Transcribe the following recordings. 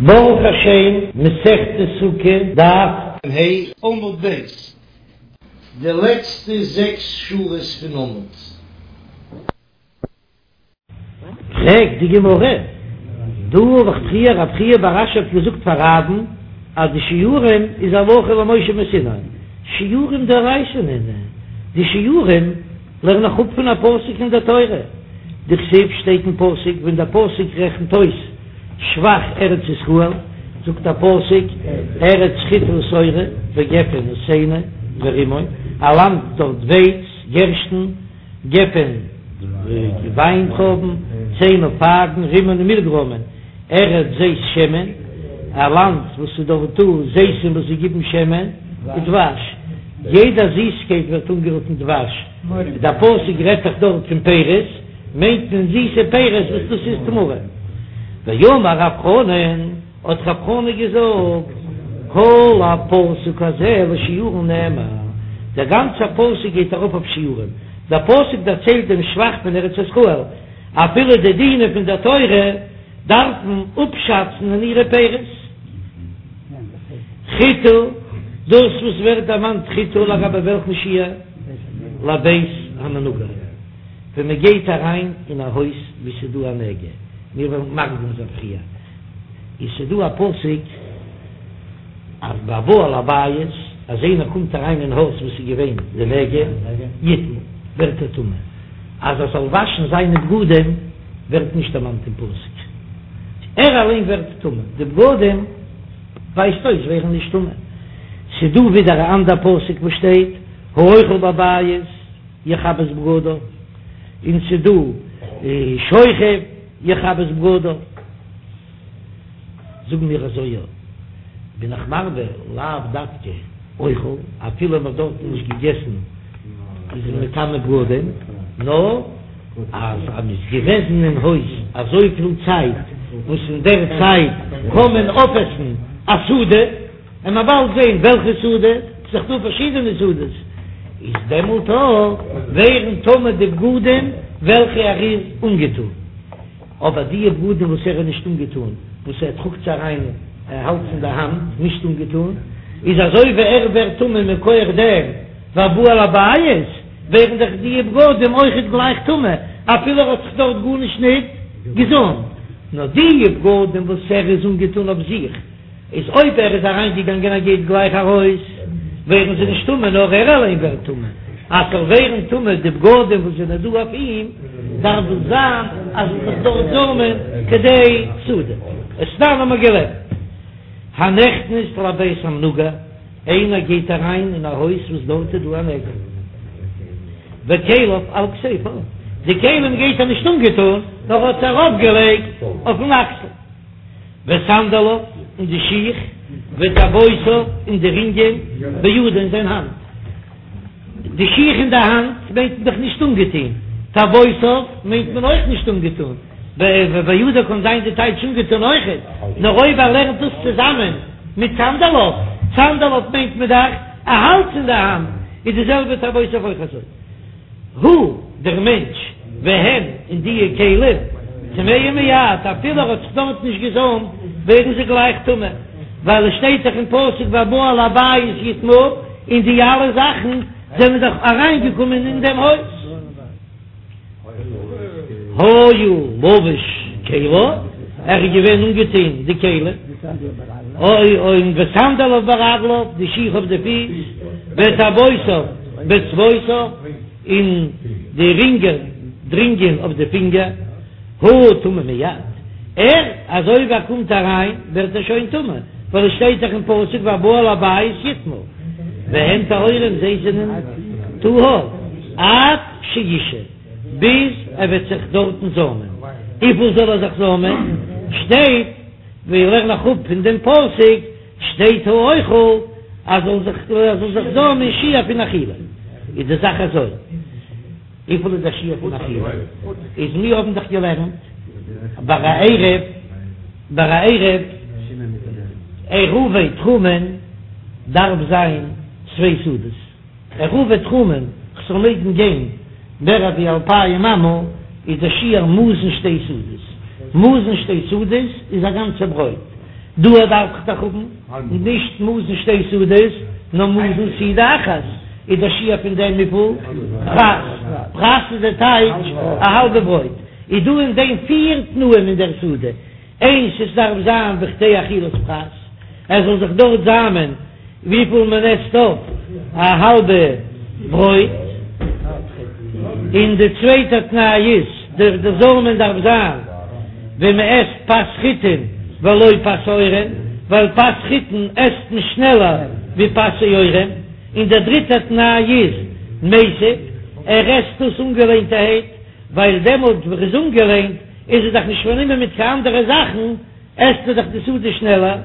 ברוך השם, מסכת סוכה, דף ה', עמוד ב', די לעצטע זעקס שורות פון עמוד. פרעגט די גמרא, דא האב איך פריער רב חייא בר אשי האט געזאגט פאר רב'ן אז די שיעורים איז הלכה למשה מסיני, שיעורים דאורייתא נינהו, די שיעורים לערן איך אפ פון א פסוק אין דער תורה, דכתיב שטייט אין פסוק ווען דער פסוק רעכנט אויס שבח ארץ ישראל, זאגט דער פסוק, ארץ חיטה ושעורה וגפן ותאנה ורימון, א לאנד דארט ווייץ, גערשטן, גפן, וויינטרויבן, תאנה פייגן, רימון און מילגרוימען, ארץ זית שמן, א לאנד וואס איז דארט דא זיתים וואס זיי גיבן שמן, ודבש, יעדע זיסקייט ווערט אנגערופן דבש, דער פסוק רעדט דאך דארט פון פירות, מיינט מען זיסע פירות וואס דאס איז תמרים. ואמר רב חנן, האט רב חנן געזאגט, כל הפסוק הזה לשיעורין נאמר, דער גאנצער פסוק גייט ארויף אויף שיעורים, דער פסוק דערציילט דעם שבח פון ארץ ישראל, אפילו די דינים פון דער תורה דארף מען אפשאצן אין אירע פירות. חיטה, דאס וואס ווערט דערמאנט חיטה לגבי וועלכן שיעור? לבית המנוגע. ווען מען גייט אריין אין א הויז וואו ס'איז דא א נגע, מיר וועלן מקדים זיין פריער, איז ס'דא א פסוק אז והבא אל הבית, אז איינער קומט אריין אין הויז וואו ס'איז געווען די נגע, יטמא, ווערט ער טמא, אז ער זאל וואשן זיינע בגדים ווערט נישט דערמאנט אין פסוק, ער אליין ווערט טמא, די בגדים ווייזט אויס ווערן נישט טמא. ס'דא ווידער א אנדער פסוק וואס שטייט האוכל בבית. יכבס בגדיו, און ס'דא שוכב יכבס בגדיו, זאגן מיר אזוי יא, בין איך מרבה לאו דווקא אוכל, אפילו מ'האט דארטן נישט געגעסן איז מען מטמא בגדים, נאר אז אז מ'איז געוועזן אין הויז אזויפיל צייט וואס אין דער צייט קען מען אויפעסן א סעודה. און מען באלד זעהן וועלכע סעודה, ס'איז דאך דא פארשידענע סעודות, איז דעמאלט אויך ווערן טמא די בגדים וועלכע ער איז אנגעטון, אבער די בגדים וואס ער איז נישט אנגעטון, וואס ער טראגט זיי אריין, ער האלט עס אין די האנט נישט אנגעטון, איז אזוי ווי ער ווערט טמא מכח דעם והבא אל הבית, ווערן דאך די בגדים אויכעט גלייך טמא, אפילו ער האט זיך דארט גארנישט ניט געזאמט, נאר די בגדים וואס ער איז אנגעטון אויף זיך. איז אויב ער איז אריין געגאנגען ער גייט גלייך ארויס ווערן זיי נישט טמא נאר ער אליין ווערט טמא, אז ס'זאל ווערן טמא די בגדים וואס זענען דא אויף אים דארף דאס זיין אז עס זיך דארט זאמען כדי סעודה, ותנן האבן מיר געלערנט הנכנס לבית המנוגע, איינער גייט אריין אין א הויז וואס דארט איז דא א נגע, וכליו על כתפו, די כלים גייט ער נישט אנגעטון נאר האט זיי ארויף געלייגט אויפן אקסל. וסנדליו, און די שיך, וטבעותיו, און די רינגען, בידו אין זיין האנט. די שיך אין די האנט מיינט מען דאך נישט אנגעטון, טבעותיו מיינט מען אויך נישט אנגעטון, בידו קען זיין די טייטש אנגעטון אויכעט, נאר אויב ער לערנט דאס צוזאמען מיט סנדליו, סנדליו מיינט מען דאך ער האלט אין די האנט, איז די זעלבע טבעותיו אויך אזוי. הוא, דער מענטש, והן, און דיע כלים, טמאים מיד, אפילו ער האט זיך דארט נישט געזאמט, ווערן זיי גלייך טמא, ווייל עס שטייט דאך אין פסוק והבא אל הבית יטמא, און די אלע זאכן זענען דאך אריינגעקומען אין דעם הויז. היה לבוש כליו, ער איז געווען אנגעטון די כלים, און וסנדליו ברגליו, די שיך אויף די פיס, וטבעותיו באצבעותיו, און די רינגען, די רינגען אויף די פינגער, הוא טמא מיד, ער, אזוי ווי ער קומט אריין ווערט ער שוין טמא, ווייל עס שטייט דאך אין פסוק והבא אל הבית יטמא, והן טהורים זיי זענען טהור עד שישהה, ביז ער וועט זיך דארטן זאמען, וויפיל זאל ער זיך זאמען? שטייט, ווי איך לערן אראפ פון דעם פסוק, שטייט האוכל אז זאל זיך ער זאל זיך זאמען שיעור פון אכילה, איז די זאך אזוי, וויפיל איז א שיעור פון אכילה? איז מיר האבן דאך געלערנט ביי א עירוב, ביי א עירוב, עירובי תחומין דארף זיין צוויי סעודות. עירובי תחומין, כ'זאל מעגן גיין מער ווי אלפיים אמה, איז דער שיעור מזון שתי סעודות. מזון שתי סעודות איז א גאנצע ברויט. דא דארף איך דאך האבן נישט מזון שתי סעודות, נאר מזון סעודה אחת, איז דער שיעור פון דעם וויפיל? פרס, פרס איז די טייטש א האלבע ברויט, איז דא אין דעם פיר תנאים אין דער סעודה, איינס עס דארף זיין בכדי אכילת פרס, עס זאל זיך דארט זאמען וויפיל מען עסט אויף א האלבע ברויט, און די צווייטע תנאי איז די די זאמען דארף זיין ווען מען עסט פת חיטין ולא פת שעורים, ווייל פת חיטין עסט מען שנעלער ווי פת שעורים, און דער דריטער תנאי איז מיסב, ער עסט דאס אנגעלענטערהייט, ווייל דעמאלט ווען ער איז אנגעלענט איז ער דאך נישט פארנומען מיט קיין אנדערע זאכן, עסט ער דאך די סעודה שנעלער,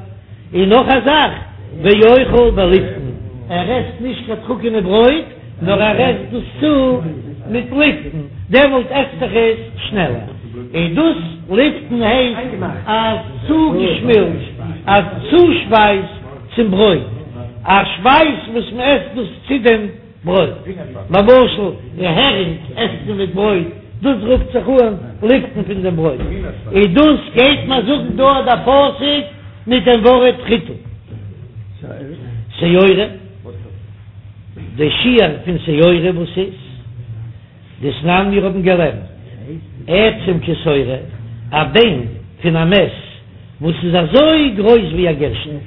און נאך א זאך, ואוכל בליפתן, ער עסט נישט קיין טרוקענע ברויט, נאר ער עסט דאס צו מיט ליפתן, דעמאלט עסט זיך עס שנעלער, און דאס ליפתן הייסט א צוגעשמילץ, א צושפייז צום ברויט, א שפייז וואס מען עסט דאס צו דעם. ברויט. למשל, די הערינג עסט מען מיט ברויט, דאס רופט זיך אן ליפתן פון דעם ברויט. און דאס גייט מען זאגן דא דער פסוק מיט דעם ווארט חיטה. שעורה, די שיעור פון שעורה וואס איז? דתנן מיר האבן געלערנט עצם כשעורה, א ביין פון א מת וואס איז אזוי גרויס ווי א גערשטן,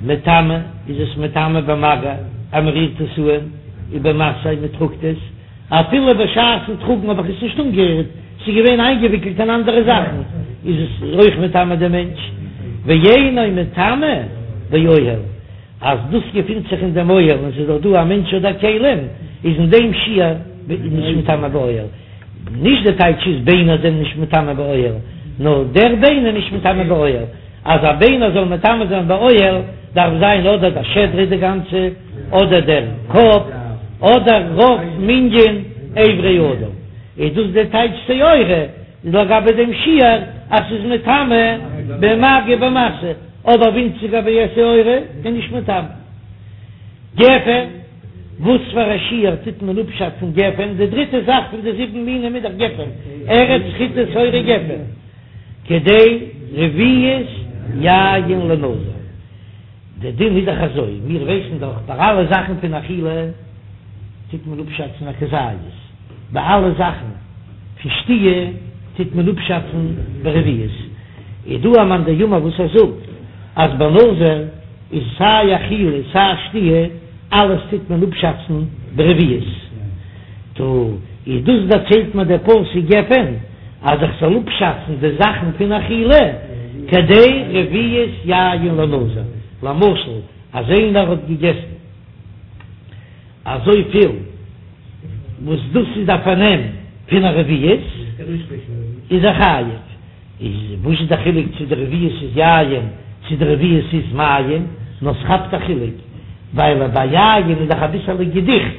מטמא איז עס מטמא במגע אז מען רירט עס אן, ובמשא מען טראגט עס, אפילו בשעת'ן טראגן האב איך עס נישט אנגערירט, ס'איז געווען איינגעוויקלט אין אנדערע זאכן, איז עס אויך מטמא דעם מענטש, ואינו מטמא באוהל. אז דאס געפינט זיך אין דעם אוהל און ס'איז דאך דא א מענטש אדער כלים, איז אין דעם שיעור נישט מטמא באוהל. נישט די טייטש איז ביינער זענען נישט מטמא באוהל, נאר דער ביין איז נישט מטמא באוהל. אז א ביינער זאל מטמא זיין באוהל דארף זיין אדער די שדרה די גאנצע, אדער דער קאפ, אדער רוב מנין אברי אדם. איז דאס די טייטש שעורה לגבי דעם שיעור אז ס'איז מטמא במגע ובמשא. אבער ווינציגער ווי א שעורה איז נישט מטמא. גפן, וואס פאר א שיעור טוט מען אפשאצן גפן? די דריטע זאך פון די זיבן מינים איז דאך גפן, ארץ חיטה שעורה גפן, כדי רביעית יין לנזיר. די דין איז דאך אזוי, מיר ווייסן דאך ביי אלע זאכן פון אכילה טוט מען אפשאצן א כזית, ביי אלע זאכן פון שתיה טוט מען אפשאצן ברביעית. איז דא א מאן דאמר וואס ער זאגט אז ביי נזיר איז סיי אכילה סיי שתיה אלעס טוט מען אפשאצן ברביעית, טא איז דאס דערציילט מיר דער פסוק גפן אז איך זאל אפשאצן די זאכן פון אכילה כדי רביעית יין לנזיר, למשל אז איינער האט געגעסן אזויפיל וואס דאס איז א פארנעם פון א רביעית איז ער חייב. איז וואס איז די חילוק צו די רביעית איז יין צו די רביעית איז מים? נאר ס'כאפט א חילוק ווייל ביי יין איז דאך אביסעלע געדיכט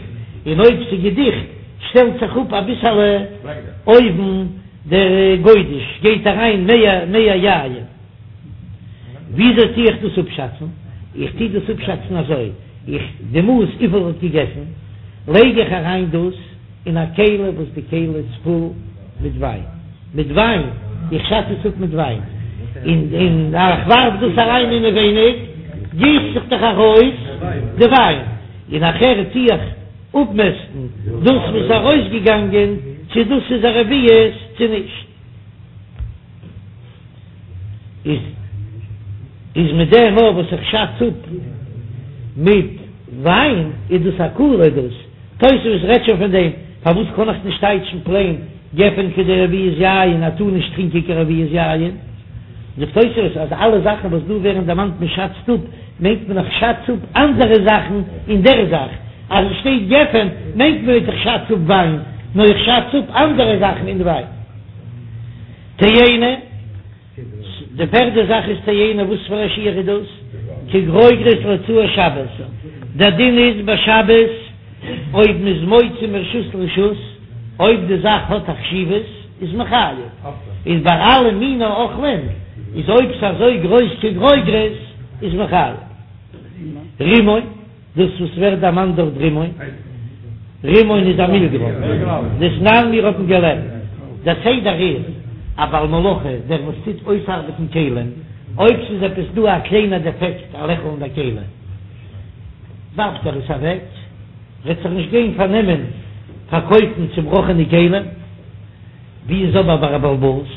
און אויב ס'איז געדיכט שטעלט זיך אפ אביסעלע אויבן דער גודש גייט אריין מער מער יין. וויאזוי טו איך דאס אפשאצן? איך טו דאס אפשאצן אזוי, איך די מאס וויפיל ער האט געגעסן לייג איך אריין דאס אין א כלי וואס די כלי איז פול מיט וויין, מיט וויין, איך שאץ עס אפ מיט וויין, און און איך ווארף דאס אריין אינעווייניג, גיסט זיך דאך ארויס די וויין, און נאכהער טו איך אפמעסטן דאס וואס איז ארויסגעגאנגען, צו דאס איז א רביעית צו נישט. איז איז מיט דעם אויך וואס איך שאץ אפ מיט וויין איז דאס א קולא דאס תוספות רעדט שוין פון דעם פארוואס קען איך נישט טייטשן פלעין גפן כדי רביעית יין ער טאר נישט טרינקען קיין רביעית יין זאגט תוספות אז אלע זאכן וואס דא ווערן דערמאנט מען שאצט אפ מיינט מען איך שאץ אפ אנדערע זאכן אין דער זאך אז עס שטייט גפן מיינט מען ניט איך שאץ אפ וויין נאר איך שאץ אפ אנדערע זאכן אין וויין. תאנה, די פערדע זאך איז תאנה, וואס פאר א שיעור איז דאס? כגרוגרת להוצאת שבת, דער דין איז ביי שבת אויב מ'איז מוציא מרשות לרשות, אויב די זאך האט א חשיבות איז מען חייב, איז ביי אלע מיני אוכלים איז אויב ס'איז אזוי גרויס כגרוגרת איז מען חייב. רימון. דאס וואס ווערט דערמאנט דארט רימון, רימון איז א מילגרוים, דתנן מיר האבן געלערנט, דער סדר איז, א בעל מלאכה, דער וואס טוט אויסארבעטן כלים, אויב ס'איז עפעס דא א קליינע דעפעקט א לעכל אין די כלי, ווארפט ער עס אוועק, וועט זיך נישט גיין פארנעמען פארקויפן צובראכענע כלים. ווי איז אבער ביי א בעל הבית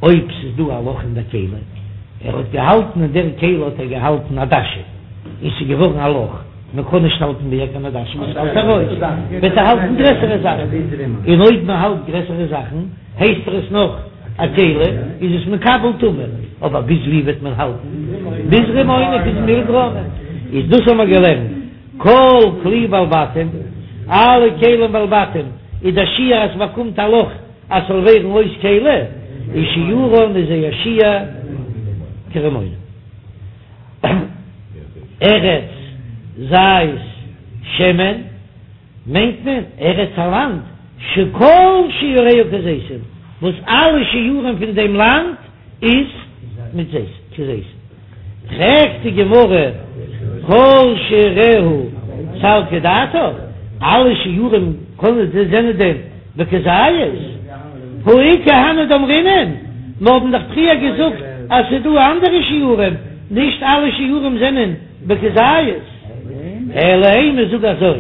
אויב ס'איז דא א לאך אין דער כלי, ער האט געהאלטן אין דער כלי האט ער געהאלטן עדשים, און ס'איז געווארן א לאך, מען קען נישט האלטן מער קיין עדשים, עס פאלט ארויס, וועט ער האלטן גרעסערע זאכן, און אויב מען האלט גרעסערע זאכן הייסט ער עס נאך א כלי, איז עס מקבל טומאה, אבער ביז ווי וועט מען האלטן? ביז רימונא, ביז מילגרוימען, איז דאס האבן מיר געלערנט. כל כלי בעלי בתים, אלע כלים בעלי בתים, איז דער שיעור אז ס'באקומט א לאך אז ס'זאל ווערן אויס כלי, איז שיעורן איז זייער שיעור כרימונא. ארץ זית שמן מיינט מען ארץ א לאנד שכל שיעוריה כזיתים, וואס אלע שיעורים פון דעם לאנד איז מיט זית, כזיתים. פרעגט די גמרא, כל שיעוריה סלקא דעתך, אלע שיעורים קענען זענען דען בכזית? הא איכא הני דאמרינן, מיר האבן דאך פריער געזאגט אז ס'איז דא אנדערע שיעורים, נישט אלע שיעורים זענען בכזית. אלא אימא זאג אזוי,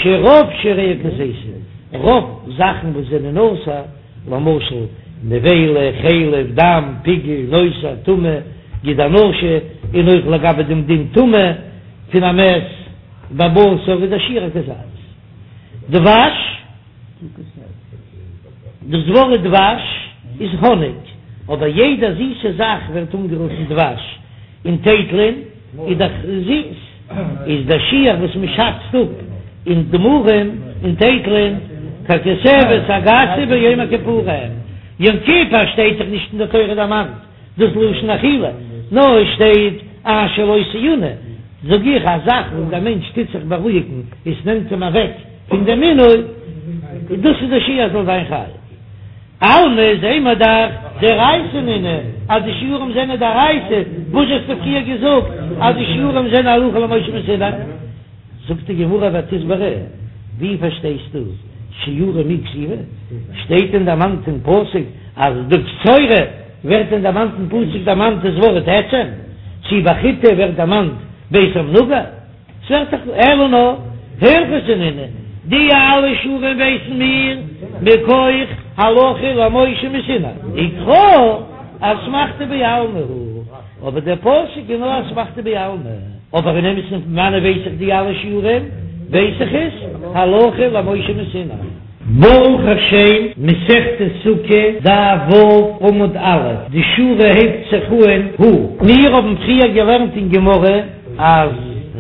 שרוב שיעוריה כזיתים, רוב זאכן וואס זענען אסור, למשל, נבילה, חלב, דם, פיגול, נותר, טמא, גיד הנשה, און אויך לגבי דעם דין טומאה פון א מת בבשר איז דער שיעור א כזית. דבש, דאס ווארט דבש איז האניג, אבער יעדע זיסע זאך ווערט אנגערופן דבש, און טייטלען איז דאך זיס, איז דער שיעור וואס מען שאצט אפ אין תמרים און טייטלען ככותבת הגסה ביום הכיפורים, יום כיפור שטייט דאך נישט אין די תורה דערמאנט דאס לשון אכילה, נאר עס שטייט אשר לא תעונה, זאג איך א זאך וואס דער מענטש טוט זיך בארואיגן עס נעמט אים אוועק פון דעם עינוי, דאס איז דער שיעור אז זאל זיין חייב. אלמא זעהן מיר דאך דאורייתא נינהו אז די שיעורים זענען דאורייתא, וואס האסטו פריער געזאגט אז די שיעורים זענען הלכה למשה מסיני? זאגט די גמרא ותסברא, ווי פארשטייסטו שיעורים מי כתיבי? שטייט דען דערמאנט אין פסוק אז די קצורה ווערט דען דערמאנט אין פסוק דערמאנט דאס ווארט עצם? צי ביי חיטה ווערט דערמאנט בית המנוגע? ס'ווערט דאך אלא נאר הלכתא נינהו, די אלע שיעורים ווייסן מיר מכח הלכה למשה מסיני, וקרא אסמכתא בעלמא הוא, אבער דער פסוק איז נאר אסמכתא בעלמא, אבער אין אמת'ן פון וואנען ווייס איך די אלע שיעורים, ווייס איך עס הלכה למשה מסיני. ברוך השם, מסכת סוכה, דף ו' עמוד א', די שורה הייבט זיך אהן הא. מיר האבן פריער געלערנט אין גמרא אז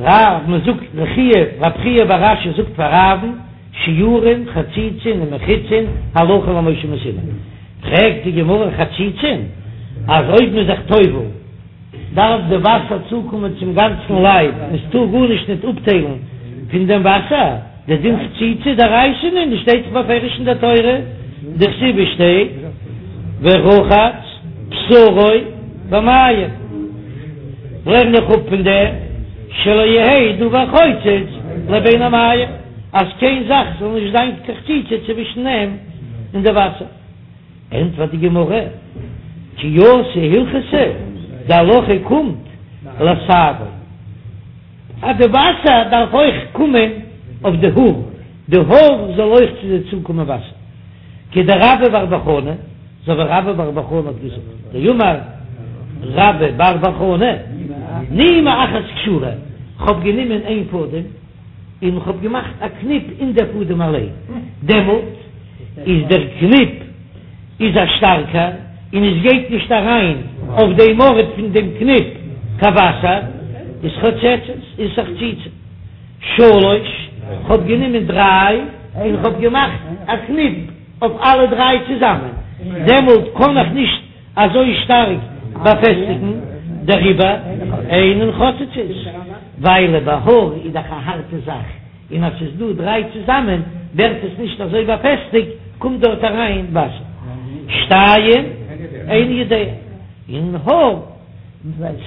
רב, מען זאגט ר' חייא, רב חייא בר אשי זאגט פאר רב'ן, שיעורין, חציצין און מחיצין, הלכה למשה מסיני. פרעגט די גמרא חציצין, אז אויב מען איז זיך טובל, דארף די וואסער צוקומען צום גאנצן לייב און ס'טאר גארנישט ניט אפטיילן פון דעם וואסער, דער דין חציצה דאורייתא נינהו שטייט דאך בפירוש אין דער תורה, דכתיב ס'שטייט ורחץ בשרו במים, לערן איך אפ פון דעם שלא יהא דבר חוצץ לבין המים, אז קיין זאך זאל נישט זיין קיין חציצה צווישן אים און די וואסער. ענטפערט די גמרא, כי אתא הלכתא, די הלכה קומט לשערו, אז די וואסער דארף אויך קומען אויף די האר, די האר זאל אויך צו זיי צוקומען וואסער, כדרבה בר בר חנה, אזוי ווי רבה בר בר חנה האט געזאגט, דאמר רבה בר בר חנה, נימא אחת קשורה, כ'האב גענומען איין פאדעם, און כ'האב געמאכט א קניפ אין דער פאדעם אליין, דעמאלט איז דער קניפ איז א שטארקער און עס גייט נישט אריין אויף דעם ארט פון דעם קניפ קיין וואסער, איז חוצצת, איז א חציצה. שלש, כ'האב גענומען דריי און כ'האב געמאכט א קניפ אויף אלע דריי צוזאמען, דעמאלט קען איך נישט אזוי שטארק באפעסטיגן, דעריבער אינן חוצצות, ווייל ביי האר איז דאך א הארטע זאך, און אז ס'איז דא דריי צוזאמען ווערט עס נישט אזוי באפעסטיגט, קומט דארט אריין וואסער. שתיים איני יודע, און האר,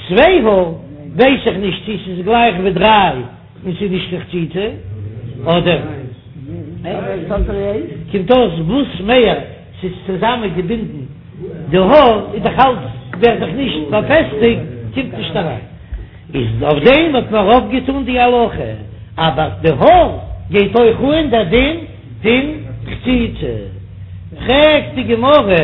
צוויי האר, ווייס איך נישט צו ס'איז גלייך ווי דריי און ס'איז נישט קיין חציצה, אדער קומט אויס וואס מער ס'איז צוזאמען געבינדן די האר איז דאך אלץ. ווערט דאך נישט באפעסטיגט, קומט נישט אריין. איז אויף דעם האט מען ארויפגעטאן די הלכה, אבער די האר גייט אויך אן דער דין פון חציצה. פרעגט די גמרא,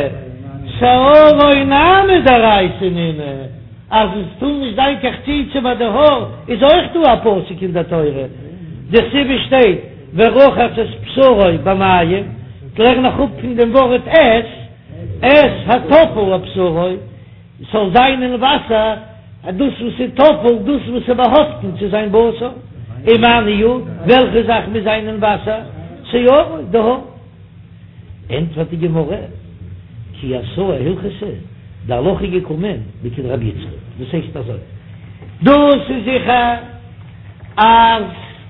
שערו נמי דאורייתא נינהו, אז עס טאר נישט זיין קיין חציצה ביי די האר, איז אויך דא א פסוק אין דער תורה, דכתיב עס שטייט ורחץ את בשרו במים, כ'לערן איך אפ פון דעם ווארט את, את הטפל לבשרו. ס'זאל זיין אין וואסער דאס וואס איז טפל, דאס וואס איז באהאפטן צו זיין בשר, ומאי ניהו, וועלכע זאך מוז זיין אין וואסער? שערו, די האר. ענטפערט די גמרא, כי אתא הלכתא, די הלכה איז געקומען לכדרבי יצחק, דאס הייסט אזוי, דאס איז זיכער אז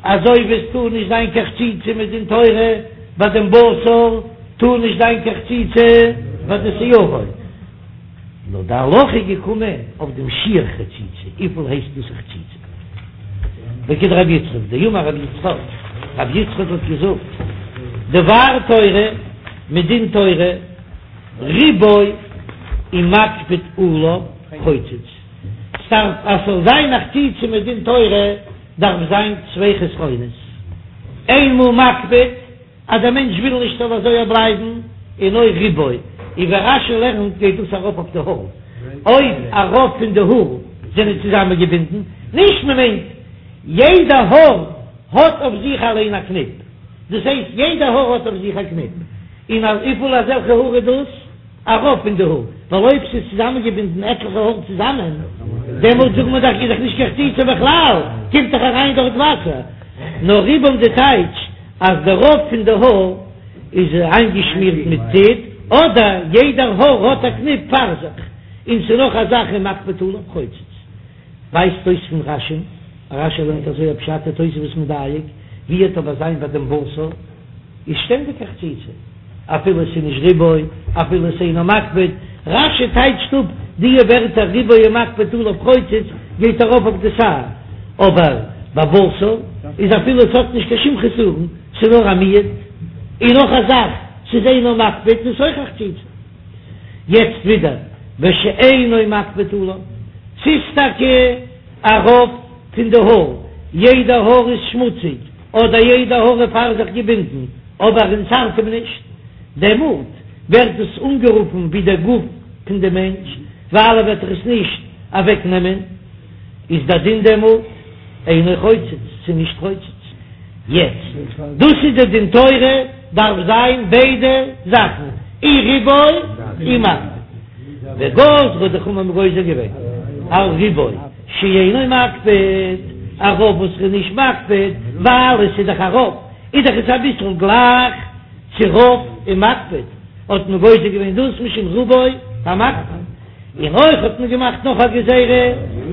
אזוי ווי עס טאר נישט זיין קיין חציצה מדין תורה ביי דעם בשר, טאר נישט זיין קיין חציצה ביי די שערו. נאר די הלכה איז געקומען אויף דעם שיעור חציצה, וויפיל הייסט דאס א חציצה? לכדרבי יצחק, דאמר רבי יצחק, רבי יצחק האט געזאגט, דבר תורה, מדין תורה, ריבו ומקפיד עליו חוצץ, ס'דארף אז ס'זאל זיין א חציצה מדין תורה דארף זיין צוויי חסרונות, איינמאל מקפיד, אז דער מענטש וויל נישט ס'זאל אזוי בלייבן, און אויך ריבו, און ווי רש"י לערנט גייט דאס ארויף אויף די האר, אויב א רוב פון די האר זענען צוזאמענגעבינדן, נישט מען מיינט יעדע האר האט אויף זיך אליין א קניפ, דאס הייסט יעדע האר האט אויף זיך א קניפ, און וויפיל אזעלכע האר איז דאס? א רוב פון די האר, ווייל אויב ס'איז צוזאמענגעבינדן עטליכע האר צוזאמען, דעמאלט זאגט מען דאך איז דאך נישט קיין חציצה בכלל, קומט דאך אריין דארט וואסער. נאר ריבם די טייטש אז די רוב פון די האר איז איינגעשמירט מיט טיט, אדער יעדער האר האט א קניפ פאר זיך, און ס'איז נאך א זאך ומקפיד עליו חוצץ. ווייזט אויס פון רש"י, רש"י לערנט אזוי א פשט תוספות מדייק, ווי וועט אבער זיין ביי דעם בשר? איז שטענדיג א חציצה, אפילו עס איז נישט ריבו, אפילו עס אינו מקפיד, רש"י טייטשט אפ די ווערטער ריבו ומקפיד עליו חוצץ גייט ארויף אויף די שער, אבער ביי בשר איז אפילו עס האט נישט קיין שום חסרון, ס'איז נאר א מיעוט, און נאך א זאך, ס'איז אינו מקפיד איז אויך א חציצה. יעצט ווידער ושאינו מקפיד עליו, ס'איז טאקע א רוב פון די האר, יעדע האר איז שמוציג, אדער יעדע האר איז פאר זיך געבינדן, אבער און ס'ארט אים נישט, דעמאלט ווערט עס אנגערופן ווי דער גוף פון די מענטש, ווייל ער וועט דאך עס נישט אוועק נעמען, איז דער דין דעמאלט אינו חוצץ, ס'איז נישט חוצץ. יעצט, דאס איז די דין תורה, דארף זיין ביידע זאכן, אי ריבו אי מקפיד. וגזרו די חכמים האבן גוזר געווען על ריבו. שאינו מקפיד, א רוב וואס איז נישט מקפיד, ווייל עס איז דאך א רוב, איז דאך עס אביסל גלייך צו רוב ומקפיד, האט מען גוזר געווען דאס משום רובו המקפיד, און אויך האט מען געמאכט נאך א גזירה,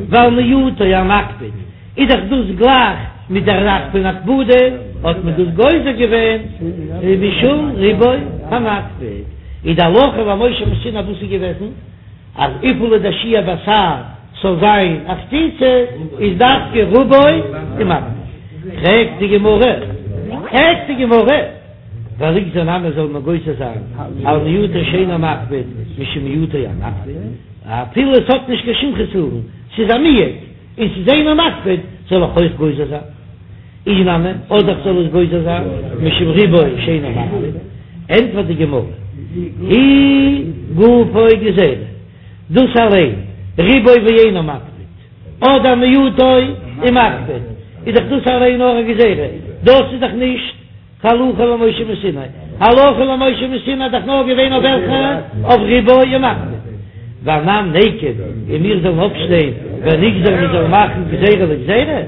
ועל מיעוטו המקפיד, איז דאך דאס גלייך מיט דער זאך פון הקפדה, האט מען דאס גוזר געווען משום ריבו המקפיד, איז די הלכה למשה מסיני וואס איז געוועזן? אז וויפיל איז דער שיעור ביי שער ס'זאל זיין א חציצה איז דווקא רובו ומקפיד. פרעגט די גמרא, פרעגט די גמרא, וליגזור נמי זאל מען גוזר זיין על מיעוטו שאינו מקפיד משום מיעוטו המקפיד, אפילו עס האט נישט קיין שום חסרון, ס'איז א מיעוט און ס'איז אינו מקפיד, זאל איך אויך גוזר זיין? אי נמי, אדער כ'זאל עס גוזר זיין משום ריבו שאינו מקפיד, ענטפערט די גמרא, היא גופה גזירה, דאס אליין, ריבו ואינו מקפיד, אדער מיעוטו ומקפיד, איז דאך דאס אליין נאר א גזירה, דאס איז דאך נישט קיין הלכה למשה מסיני, הלכה למשה מסיני איז דאך נאר געווען אויף וועלכע? אויף ריבו ומקפיד. ואנן ניקום, און מיר זאלן אויפשטיין ונגזור מיר זאלן מאכן גזירה לגזירה.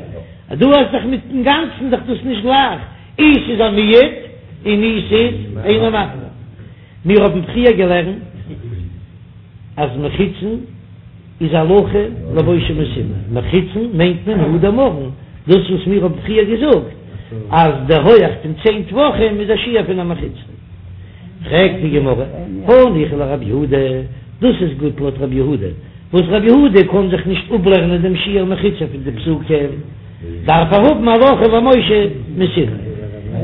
דא האסט דאך מיטן גאנצן דאך דאס נישט גלייך, אי ס'איז א מיעוט און אי ס'איז אינו מקפיד. מיר האבן פריער געלערנט אז מחיצין איז הלכה למשה מסיני, מחיצין מיינט מען הא דאמרן, דאס וואס מיר האבן פריער געזאגט אז די הויעך פון צען טפחים איז א שיעור פון א מחיצה. פרעגט די גמרא, הניחא לרב יהודה, דאס איז גוט לויט רב יהודה, וואס רבי יהודה קען זיך נישט אפלערנען דעם שיעור מחיצה פון די פסוקים, דארף ער האבן הלכה למשה מסיני.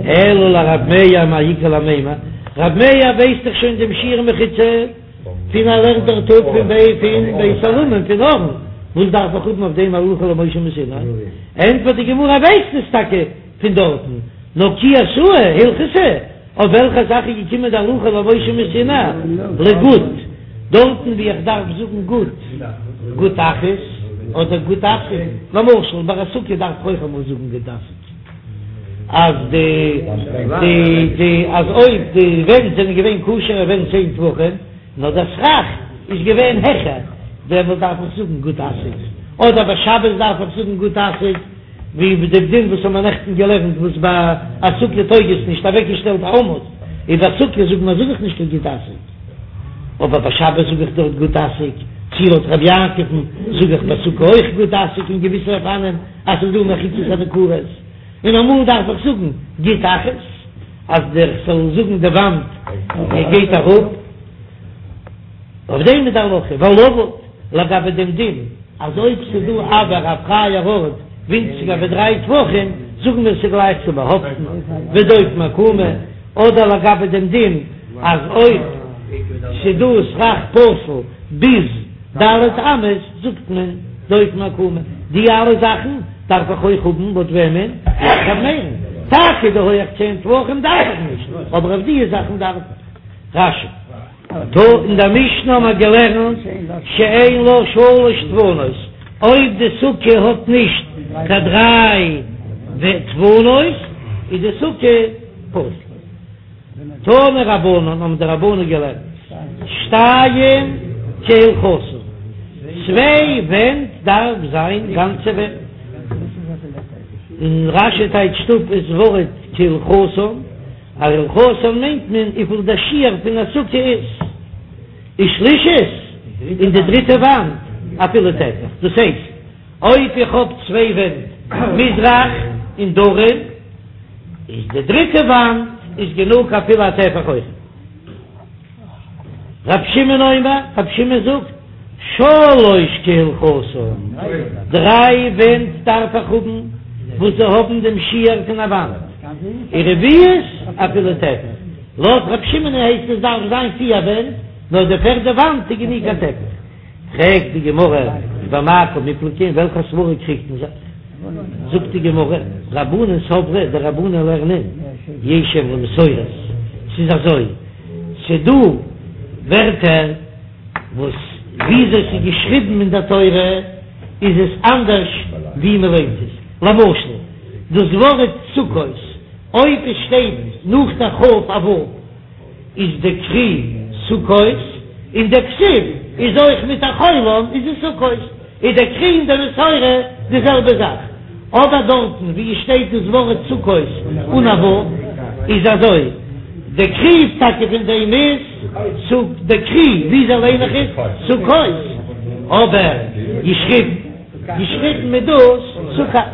אלא לרב מאיר מאי איכא למימר, רב מאיר ווייסט דאך שוין דעם שיעור מחיצה. פון ער לערנט דארט אפ פון בי פון בית עולמים פון ארון, וואס דארף איך האבן אויף דעם הלכה למשה מסיני? ענטפערט די גמרא ווייסט עס טאקע פון דארטן, נאר כי אתאי הלכתא, אויף וועלכע זאך איז געקומען די הלכה למשה מסיני? לגוד, דארטן ווי איך דארף זאגן גוד, גוד אחית אדער גוד אסיק, למשל ביי א סוכה דארף איך אויך אמאל זאגן גוד אסיק, אז די די די אז אויב די ווענט זענען געווען כשר'ע ווענט צען טפחים, נאר דער סכך איז געווען העכער, דעמאלט דארף איך זאגן גוד אסיק, אדער ביי שבת דארף איך זאגן גוד אסיק. ווי ביי דעם דין וואס האבן מיר נעכטן געלערנט וואס ביי א סוכה טויג עס נישט אוועקגעשטעלט א עמוד, און ביי סוכה זאגט מען זאג איך נישט קיין גוד אסיק, אבער ביי שבת זאג איך דארט גוד אסיק, צי לויט רבי יעקב'ן זאג איך ביי סוכה אויך גוד אסיק אין געוויסע אופנים אז ס'איז דא מחיצות הניכרות, און אמאל דארף איך זאגן גוד אחית אז דער כ'זאל זאגן די וואנט גייט אראפ. אויף דעם איז די הלכה ולבוד לגבי דעם דין אז אויב ס'איז דא אויר א פרייער ארט ווינציגער ווי דריי טפחים זאגן מיר ס'גלייך צו באהאפטן ודופן עקומה, אדער לגבי דעם דין אז אויב ס'איז דא סכך פסול ביז ד' אמות זאגט מען דופן עקומה, די אלע זאכן דארף איך אויך האבן לויט וועמען? לויט ר' מאיר'ן, טאקע די הויעך צען טפחים דארף איך נישט, אבער אויף די זאכן דארף איך. רש"י. טא, אין דער משנה האבן מיר געלערנט שאין לה שלש דפנות, אויב די סוכה האט נישט קיין דריי דפנות איז די סוכה פסול. תנו רבנן האבן די רבנן געלערנט, שתיים כהלכתן, צוויי ווענט דארף זיין גאנצע ווענט, און רש"י טייטשט אפ דאס ווארט כהלכתן, אז הלכתן מיינט מען וויפיל דער שיעור פון א סוכה איז, ושלישית, און די דריטע וואנט אפילו טפח, דאס הייסט אויב איך האב צוויי ווענט מזרח און דרום, איז די דריטע וואנט איז גענוג אפילו א טפח אויך. רב שמעון אומר, רב שמעון זאגט, שלש כהלכתן, דריי ווענט דארף איך האבן וואס זיי האבן דעם שיעור פון א וואנט, ורביעית אפילו טפח, לויט רב שמעון הייסט עס דארף זיין פיר ווענט, נאר די פערדע וואנט איז גענוג א טפח. פרעגט די גמרא, במאי קמיפלגי, אין וועלכע סברא קריגט מען זיך? זאגט די גמרא, רבנן סברי, די רבנן לערנען, יש אם למסורת, ס'איז אזוי, ס'דא ווערטער וואס וויאזוי ס'איז געשריבן אין דער תורה איז עס אנדערש ווי מ'ליינט עס, למשל דאס ווארט סוכות, אויב עס שטייט נאך דער כ' א ו' איז די קרי סוכות, און די כתיב איז אויך מיט א חולם איז עס סוכות, איז די קרי און די מסורה די זעלבע זאך, אבער דארטן ווי עס שטייט דאס ווארט סוכות אן א ו' איז אזוי, די קרי טאקע פון דעם איז סוכ די קרי וויאזוי ליין איך עס סוכות, אבער געשריבן געשריבן מיט דאס סוכת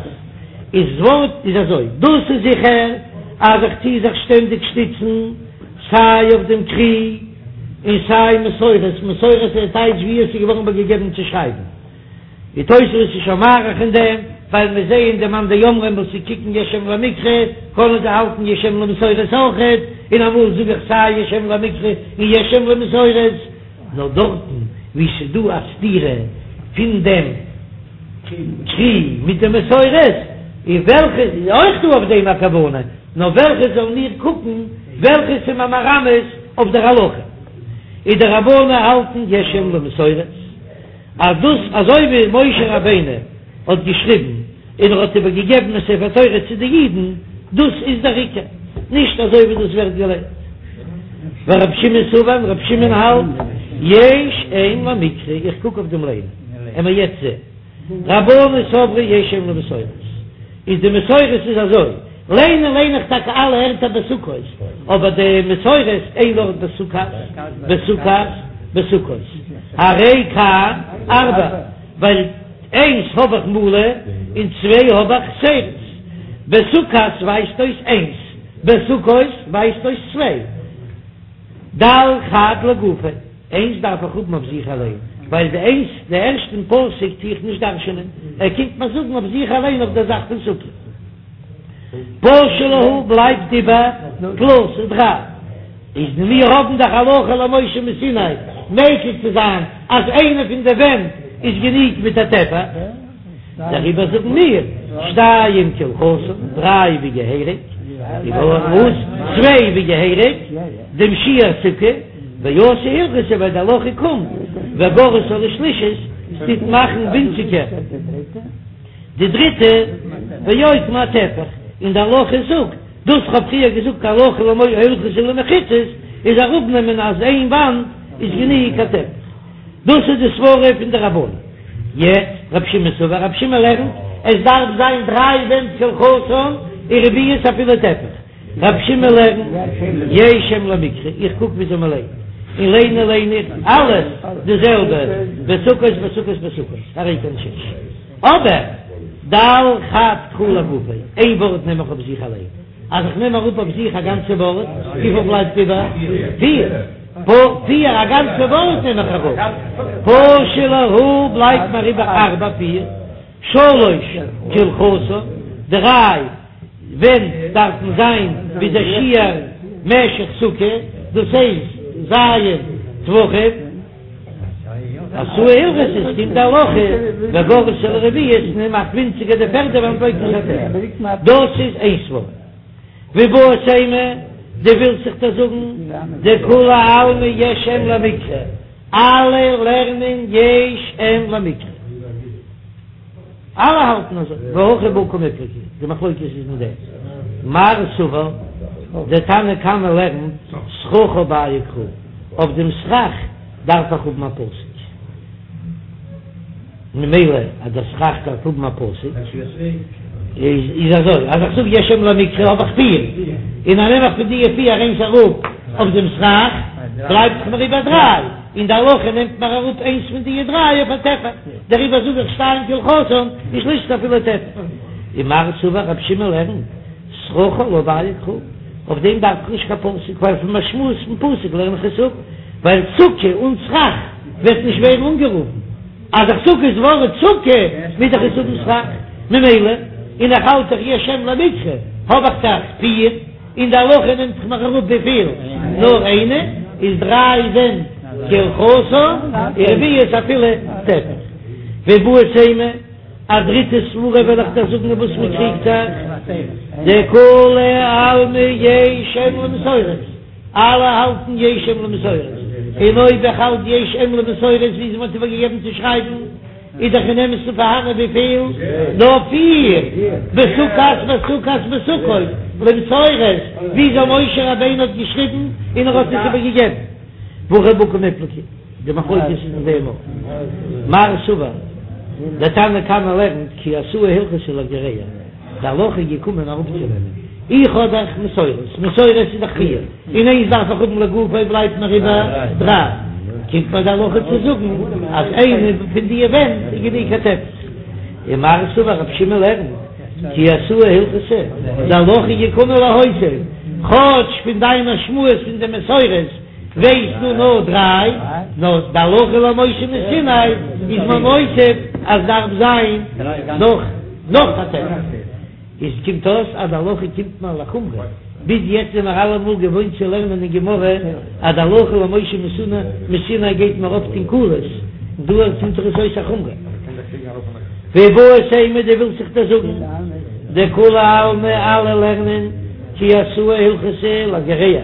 איז ווארט איז אזוי, דאס איז זיכער אז איך טוה זיך שטענדיג שטיצן סיי אויף דעם קרי און סיי מסורת, מסורת איז טייטש ווי עס איז געווארן איבערגעגעבן צו שרייבן. די תוספות איז שוין מאריך אין דעם, ווייל מיר זעען די מאן דאמרים וואס זיי קוקן יש אם למקרא, קענען זיי האלטן יש אם למסורת אויכעט, און אמאל זאג איך סיי יש אם למקרא און יש אם למסורת, נאר דארטן וואו ס'איז דא א סתירה פון דעם קרי מיט די מסורת, און וועלכע איז אויך דא אויף דעם א כוונה, נאר וועלכע זאלן מיר קוקן וועלכע ס'איז מיר מרמז אויף דער הלכה, איז די רבנן האלטן יש אם למסורת. אז דאס אזוי ווי משה רבינו האט געשריבן און ער האט איבער געגעבן אין ספר תורה צו די אידן, דאס איז דער עיקר, נישט אזוי ווי דאס ווערט געליינט. ורב שמעון סבר, רב שמעון האלט, יש אם למקרא, איך קוק אויף דעם ליינען, עמער יעצט זען, רבנן סברי יש אם למסורת, איז די מסורת איז אזוי, ליינען ליין איך טאקע אלע ערטער בסוכות, אבער די מסורת איין ארט בסוכת, בסוכת, בסוכות, הרי כאן ארבע, ווייל איינס האב איך מלא און צוויי האב איך חסרות, בסוכת ווייזט אויס איינס, בסוכות ווייזט אויס צוויי, דל חד לגופיה, איינס דארף איך האבן אויף זיך אליין, ווייל די איינס די ערשטן פסוק טו איך נישט דרש'נען, ער קומט מיר זאגן אויף זיך אליין אויף דער זאך פון סוכה. פשו להו בלייבט איבער תלתא דריי, איז מיר האבן דאך הלכה למשה מסיני. מקיל צו זיין אז איינע פון די ווענט איז גענוג מיט א טפח. דעריבער זאגן מיר, שתיים כהלכתן, דריי ווי געהעריג, וואס? צוויי ווי געהעריג, דעם שיעור סוכה, ואתא הלכתא ווייל די הלכה קומט, וגרעתה לשלישית, ס'טוט מאכן ווינציגער די דריטע, ואוקמה אטפח, און די הלכה זאגט, דאס כ'האב פריער געזאגט הלכה למשה הלכתא למחיצות, איז אראפנעמען אז איין וואנט איז גענוג א טפח. דאס איז די סברה פון די רבנן. יעצט רב שמעון סבר, רב שמעון לערנט עס דארף זיין דריי ווענט כהלכתן און רביעית אפילו טפח. רב שמעון לערנט יש אם למקרא, איך קוק וויאזוי מען ליינט, און ליינען ליין איך אלעס די זעלבע, בסוכות בסוכות בסוכות, הרי כאן שש. אבער דל חד קרא לגופיה, איין ווארט נעם איך אויף זיך אליין, אז איך נעם אראפ אויף זיך א גאנצע ווארט, וויפיל בלייבט איבער? פיר. פיר, א גאנצע ווארט נעם איך אראפ. פשו להו בלייבט מיר איבער ארבע פיר, שלש כהלכתן, דריי ווענט דארפן זיין ווי דער שיעור משך סוכה, דאס הייסט ז' טפחים. אתא הלכתא עס קומט די הלכה וגרעתה לרביעית און מאכט ווינציגער די פערדע וואנט ואוקמה אטפח. דאס איז איין סברא. ואיבעית אימא, דו ווילסט זיך דא זאגן דכולי עלמא יש אם למקרא, אלע לערנען יש אם למקרא, אלע האלטן אזוי, והכא בהא קמיפלגי, די מחלוקת איז אין דעם, מר סבר, דער תנא קמא לערנט סככה בעיא קרא, אויף דעם סכך דארף איך האבן א פסוק. ממילא אז דער סכך דארף האבן א פסוק, איז אזוי, אז איך זאג יש אם למקרא האב איך פיר, און אז נעם איך פון די פיר איינס אראפ אויף דעם סכך, בלייבט דאך מיר איבער דריי, און די הלכה נעמט מיר אראפ איינס פון די דריי אויף א טפח, דעריבער זאג איך שתיים כהלכתן, ושלישית אפילו טפח. ומר סבר רב שמעון לערנט, סככה לא בעיא קרא, אויף דעם דארף איך נישט קיין פסוק, ווייל פון משמעות פון פסוק לערן איך עס אפ, ווייל סוכה אן סכך וועט נישט ווערן אנגערופן, אז איך זאג דאס ווארט סוכה מוז איך עס האבן סכך, ממילא און איך האלט דאך יש אם למקרא האב איך דאך פיר, און די הלכה נעמט זיך מיר אראפ וויפיל? נאר איינע, איז דריי ווענט כהלכתן, ורביעית אפילו טפח. ואיבעית אימא, א דריטע סברה וועל איך דיר זאגן אין וואס מען קריגט זיך, דכולי עלמא יש אם למסורת, אלע האלטן יש אם למסורת, און אויב איך האלט יש אם למסורת ווי מען האט איבערגעגעבן צו שרייבן, איז דאך אין אמת'ן פארהאנען וויפיל? נאר פיר, בסוכת בסוכת בסוכות למסורת, וויאזוי משה רבינו האט געשריבן און ער האט עס איבערגעגעבן. והכא בהא קמיפלגי, די מחלוקת איז אין דעם אויך. מר סבר, דער תנא קמא לערנט כי אתא הלכתא לגרע. די הלכה איז געקומען אראפצונעמען, איך האב דאך מסורת, מסורת איז דאך פיר, און איינס דארף איך האבן לגופו בלייבט מיר איבער דריי, קומט מיר די הלכה צו זאגן אז איינע פון די ווענט איז גענוג א טפח. ומר סבר רב שמעון לערנט כי אתא הלכתא, די הלכה איז געקומען להוסיף, כאטש פון דיין משמעות פון די מסורת ווייסטו נאר דריי, נאר די הלכה למשה מסיני איז מען מוסיף אז דארף זיין נאך. נאך א טפח. איז קומט אויס אז די הלכה קומט מיר לחומרא, ביז יעצט זעמער אלעמאל געוואוינט צו לערנען אין גמרא אז די הלכה למשה מסיני גייט מיר אפט אין קולות, און דא קומט דאך עס אויס א חומרא. ואיבעית אימא דו ווילסט זיך דא זאגן דכולי עלמא אלע לערנען כי אתא הלכתא לגרע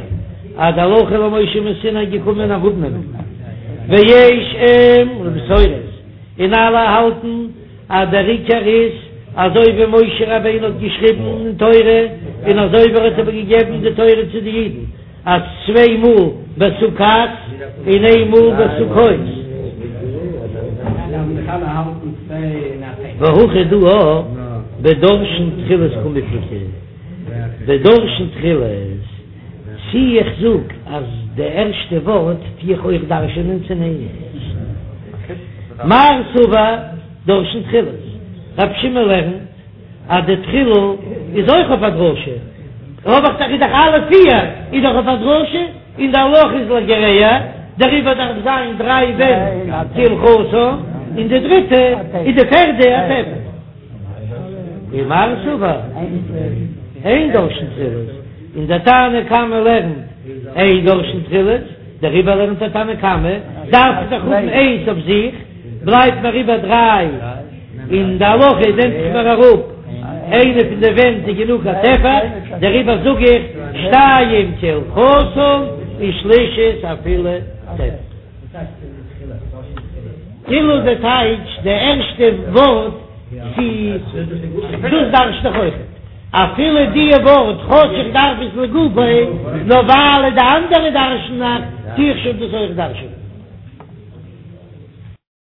אז די הלכה למשה מסיני געקומען אראפנעמען ויש אם למסורת און אלע האלטן אז דער עיקר איז אזוי ווי משה רבינו האט געשריבן אין תורה און אזוי ווי ער האט איבער געגעבן די תורה צו די אידן אז צוויי מאל בסוכת און איין מאל בסוכות. והכא דא בדורשין תחילות קמיפלגי, בדורשין תחילות, צי איך זאג אז די ערשטע ווארט טו איך אויך דרש'ענען צו נישט. מר סבר דורשין תחילות, רב שמעון לערנט אז די תחילה איז אויך אויף א דרשה, האב איך דאך איז דאך אלע פיר איז דאך אויף א דרשה, און די הלכה איז לגרע, דעריבער דארף זיין דריי ווענט כהלכתן, און די דריטע איז די פערדע א טפח. ומר סבר אין דורשין תחילות, און דער תנא קמא לערנט אין דורשין תחילות. דעריבער לערנט דער תנא קמא, דארף איך דאך האבן איינס אויף זיך, בלייבט מיר איבער דריי, און די הלכה נעמט זיך מיר אראפ איינע פון די ווענט איז גענוג א טפח, דעריבער זאג איך שתיים כהלכתן און שלישית אפילו טפח. תחילה די טייטש די ערשטע ווארט צו דאס דרש'ט דאך אויכעט אפילו די ווארט כאטש איך דארף עס לגופו נאר ווייל די אנדערע דרש'ן נאך טו איך שוין דאס אויך דרש'ענען.